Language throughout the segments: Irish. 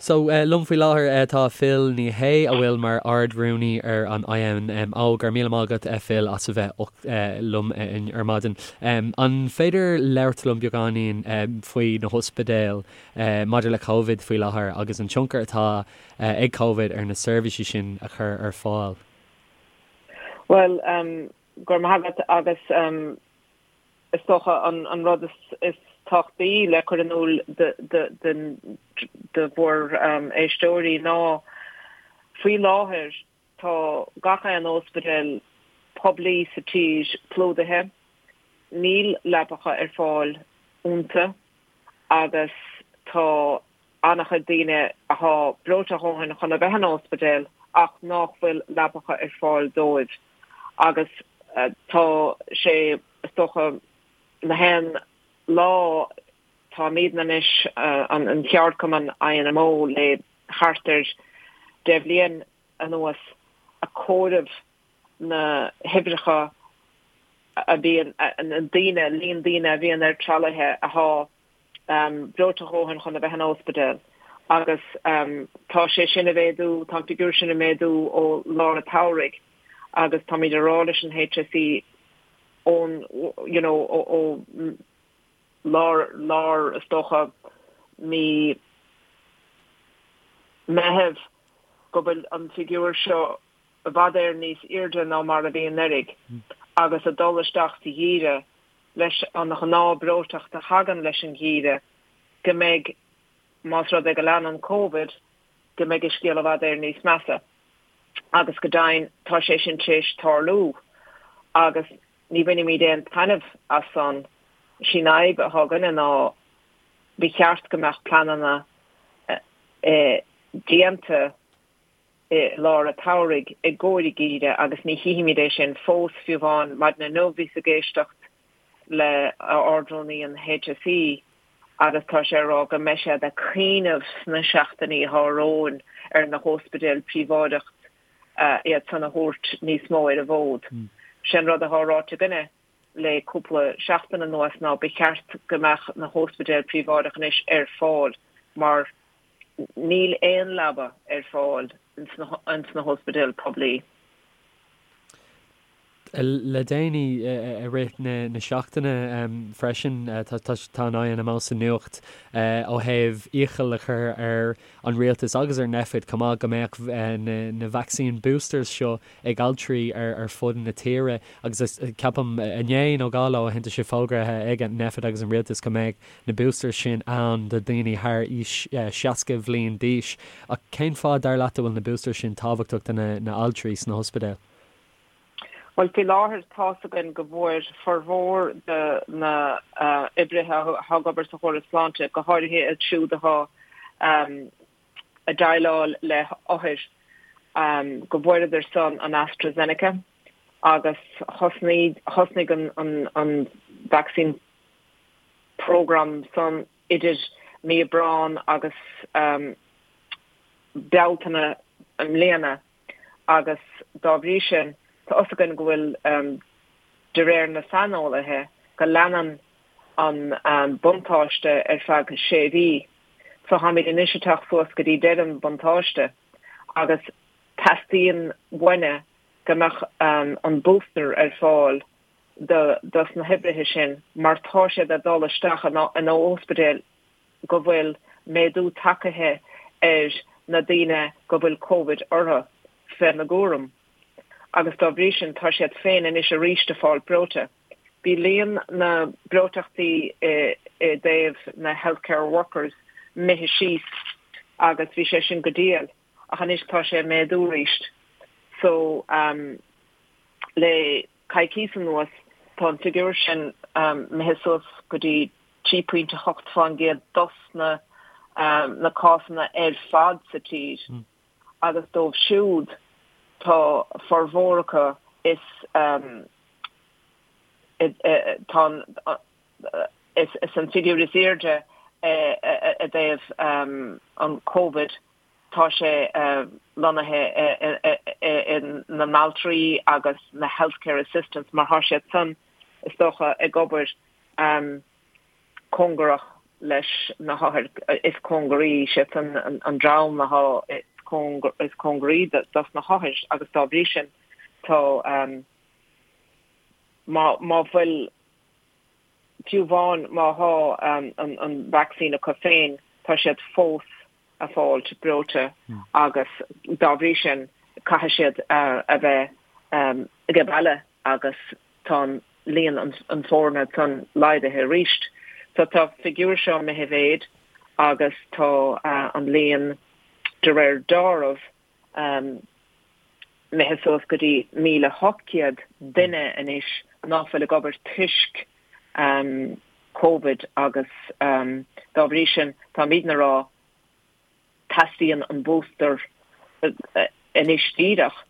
So, liom faoi láthair tá Phil Ní Sheaghdha, a bhfuil mar Ard-Rúnaí ar an INMO. Go raibh míle maith agat, Phil, as a bheith liom ar maidin. An féidir labhairt liom beagáinín faoi na hospidéil maidir le Covid faoi láthair agus an tionchar atá ag Covid ar na seirbhísí sin a chur ar fáil? Bhuel, go raibh maith agat agus is dócha an rud is tábhachtaí le cur in iúl do bhur éisteoirí ná faoi láthair tá gach aon óspidéal poiblí sa tír plódaithe, níl leapacha ar fáil iontu agus tá an-chuid daoine athá breoite a dhóthain chun a bheith in óspidéal ach nách bhfuil leapacha ar fáil dóibh agus tá sé is dócha na haon lá táimídne anois an cheardchumann INMO le thart ar 10 bhliain anuas a comhaireamh na huimhreacha a bhíonn na daoine líon daoine a bhíonn ar tralaithe athá breoite a dhóthain chun a bheith in óspidéal agus tá sé sin a mhéadú, tá an figiúr sin a méadú ó lár an tsamhraidh agus táimid a rá leis an HSE ón you know ó lár lár is dócha mí Meitheamh go bhfuil an figiúr seo i bhfad Éireann níos airde ná mar a bhí anuraidh agus a dul isteach sa gheimhreadh leis an ghnáth breoiteacht a thagann leis an gheimhreadh, go mbeidh, más rud é go leanann Covid, go mbeidh an scéal i bhfad Éireann níos measa. Agus go deimhin tá sé sin tar éis tarlú agus ní bhainimid aon taitneamh as san. Sí an fhadhb atá againne ná ba cheart go mbeadh pleananna déanta i lár an tsamhraidh i gcomhair an gheimhridh agus ní chífimid é sin fós, fiú amháin maidin inniu bhíos ag éisteacht le Ard-Rúnaí an HSE agus tá sé ag rá go mbeidh siad ag cuimhneamh sna seachtainí atá romhainn ar na hóspidéil príobháideach iad san a thabhairt níos mó ar an bhfód. Sé an rud atá ráite againne le cúpla seachtain anuas ná ba cheart go mbeadh na hóspidéil príobháideach anois ar fáil mar Níl aon leaba ar fáil ins na hóspidéil poiblí. Le déanaí, i rith na seachtaine freisin, tá an INMO sa nuacht ó thaobh iachall a chur ar an rialtas agus ar Nphet chomh maith go mbeadh na vaccine boosters seo ag altraí ar fud na tíre agus ceapaim inné nó 2 lá ó shin tá sé fógraithe ag Nphet agus an rialtas go mbeadh na boosters sin ann do dhaoine thar aois 60 bhliain d'aois. Ach cén fáth, dar leat, a bhfuil na boosters sin tábhachtach do na altraí sna hospidéil? Bhuel, faoi láthair tá's againn go bhfuair formhór de na oibrithe atá ag obair sa chóras sláinte, go háirithe iad siúd atá ag déileáil le hothair, go bhfuaireadar san an AstraZeneca agus thosnaigh thosnaigh an vaccine program san idir mí Aibreán agus Bealtaine i mbliana agus dá bhrí sin tá fhios againn go bhfuil, de réir na saineolaithe, go leanann an buntáiste ar feadh sé mhí. So táimid anois ag teacht suas go dtí deireadh an bhuntáiste agus teastaíonn uainne go mbeadh an booster ar fáil dos na hoibrithe sin mar tá siad ag dul isteach in óspidéil go bhfuil méadú tacaithe ar na daoine go bhfuil Covid orthu féna gcúram agus dá bhrí sin tá siad féin anois arís ag fáil breoite. Bhí líon na breoiteachtaí i dtaobh na healthcare workers imithe síos agus bhí sé sin go diail ach anois tá sé ag méadú arís so le coicís anuas, tá an figiúr sin imithe suas go dtí 3.8% dos na na cásanna ar fad sa tír agus dóibh siúd tá formhór acu is tá an is an figiúr is airde i dtaobh an Covid Tá sé lonnaithe i na n-altraí agus na healthcare assistants mar tá siad san, is dócha, ag obair cóngarach. leis na hothair is cóngaraí, siadsan an dream athá is cóngaraí dos na hothair agus dá bhrí sin tá má má bhfuil fiú amháin má thá an vacsaín acu féin tá siad fós a fáilt breoite agus dá bhrí sin caithfidh siad a bheith age baile agus tá an líon an foirne san laghdaithe arís. So tá figiúr seo imithe i mhéid agus tá an líon de réir deáraimh imithe suas go dtí 1,800 duine anois ná fuil ag obair toisc Covid agus dá bhrí sin táimidne a rá teastaíonn an booster anois díreach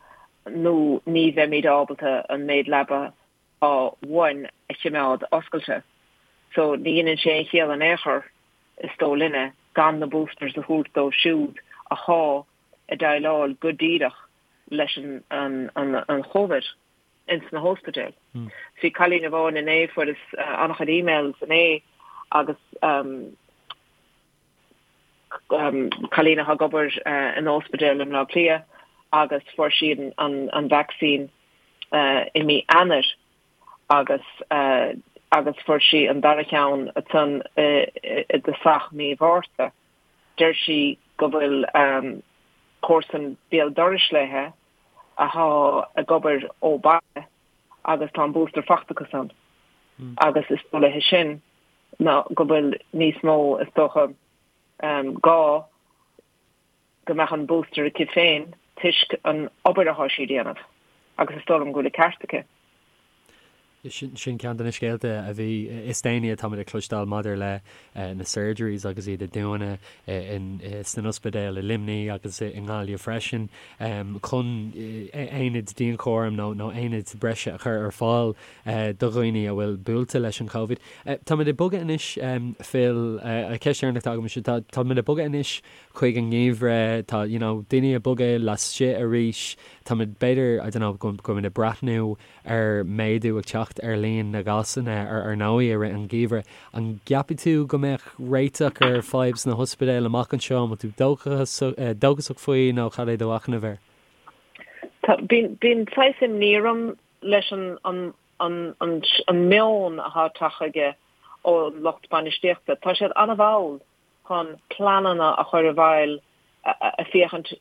nó ní bheimid ábalta an méid leaba atá uainn a chimeád oscailte. So ní dheineann sé aon chiall in aon chor, is dóigh linne, gan na boosters a thabhairt dóibh siúd athá ag déileáil go díreach leis an an Chóivid ins na hóspidéil. Bhí cailín amháin inné, fuaireas an-chuid emails inné agus cailín atá ag obair in óspidéal i mBleá Cliath agus fuair sí an vacsaín i mí Eanáir agus agus fuair sí an dara cheann ansan i dtosach mí Mhárta. Deir sí go bhfuil comharsan béal dorais léithe athá ag obair ó baile agus tá an booster fachta acu san agus is dóigh léithe sin ná go bhfuil níos mó is dócha gá go mbeadh an booster aici féin toisc an obair athá sí a déanamh agus is dóigh liom go bhfuil an ceart aici. Sin ceann de na scéalta a bhí is déanaí atáimid ag cloisteáil maidir le na surgeries agus iad ag dúnadh sna ospidéil i Luimnigh agus i nGaillimh freisin chun aonaid dianchúraim nó aonaid breise a chur ar fáil do dhaoine a bhfuil buailte leis an Covid. Táimid ag bogadh anois, Phil, ceist dheireanach atá agam, táimid ag bogadh anois chuig an ngeimhreadh, tá, you know, daoine ag bogadh laistigh arís, táimid b'fhéidir, I don't know, go bhfuilimid ag breathnú ar méadú ag teacht ar líon na gcásanna ar ndóigh i rith an gheimhridh. An gceapann tú go mbeadh réiteach ar fadhb sna hospidéil amach anseo? An bhfuil tú dóchasach faoi nó cad é do mhachnamh air? Tá, bíonn saghas imní orm leis an an meon atá tagtha chuige ón lucht bainistíochta. Tá siad an-mhall chun pleananna a chur i bhfeighil ag féachaint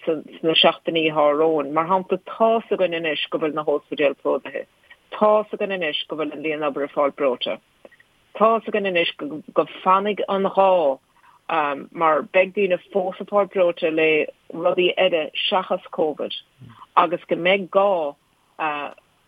sna seachtainí atá romhainn. Mar shampla, tá's againn anois go bhfuil na hóspidéil plódaithe. Tá's againn anois go bhfuil an líon obair ag fáil breoite. Tá's againn anois go fanfaidh an gá mar beidh daoine fós ag fáil breoite le rudaí eile seachas Covid agus go mbeidh gá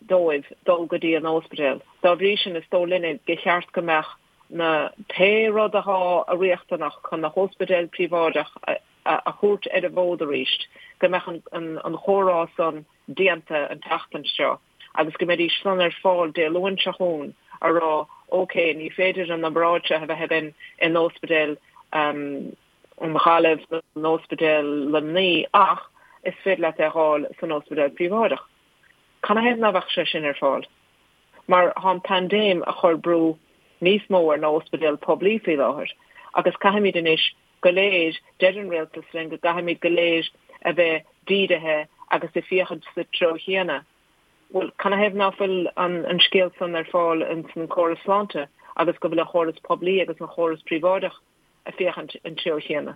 dóibh dul go dtí an óspidéal. Dá bhrí sin, is dóigh linne gur cheart go mbeadh na pé rud athá riachtanach chun na hóspidéil príobháideach a thabhairt ar an bhfód arís, go mbeadh an chomhrá san déanta an tseachtain seo agus go mbeidís san ar fáil Dé Luain seo chugainn a rá ok, ní féidir an obráid seo a bheith againn in óspidéal an Ghaillimh nó in óspidéal Luimnigh ach is féidir leat é a dh'fháil san óspidéal príobháideach. Canathaobh ná bheadh sé sin ar fáil? Mar thá an paindéim a chur brú níos mó ar na hóspidéil poiblí faoi láthair agus caithfimid anois go léir, deir an rialtas linn go gcaithfimid go léir a bheith dírithe agus ag féachaint sa treo chéanna. Bhuel, canathaobh ná fuil an scéal san ar fáil ins an córas sláinte agus go bhfuil an chóras poiblí agus an chóras príobháideach ag féachaint an treo chéanna?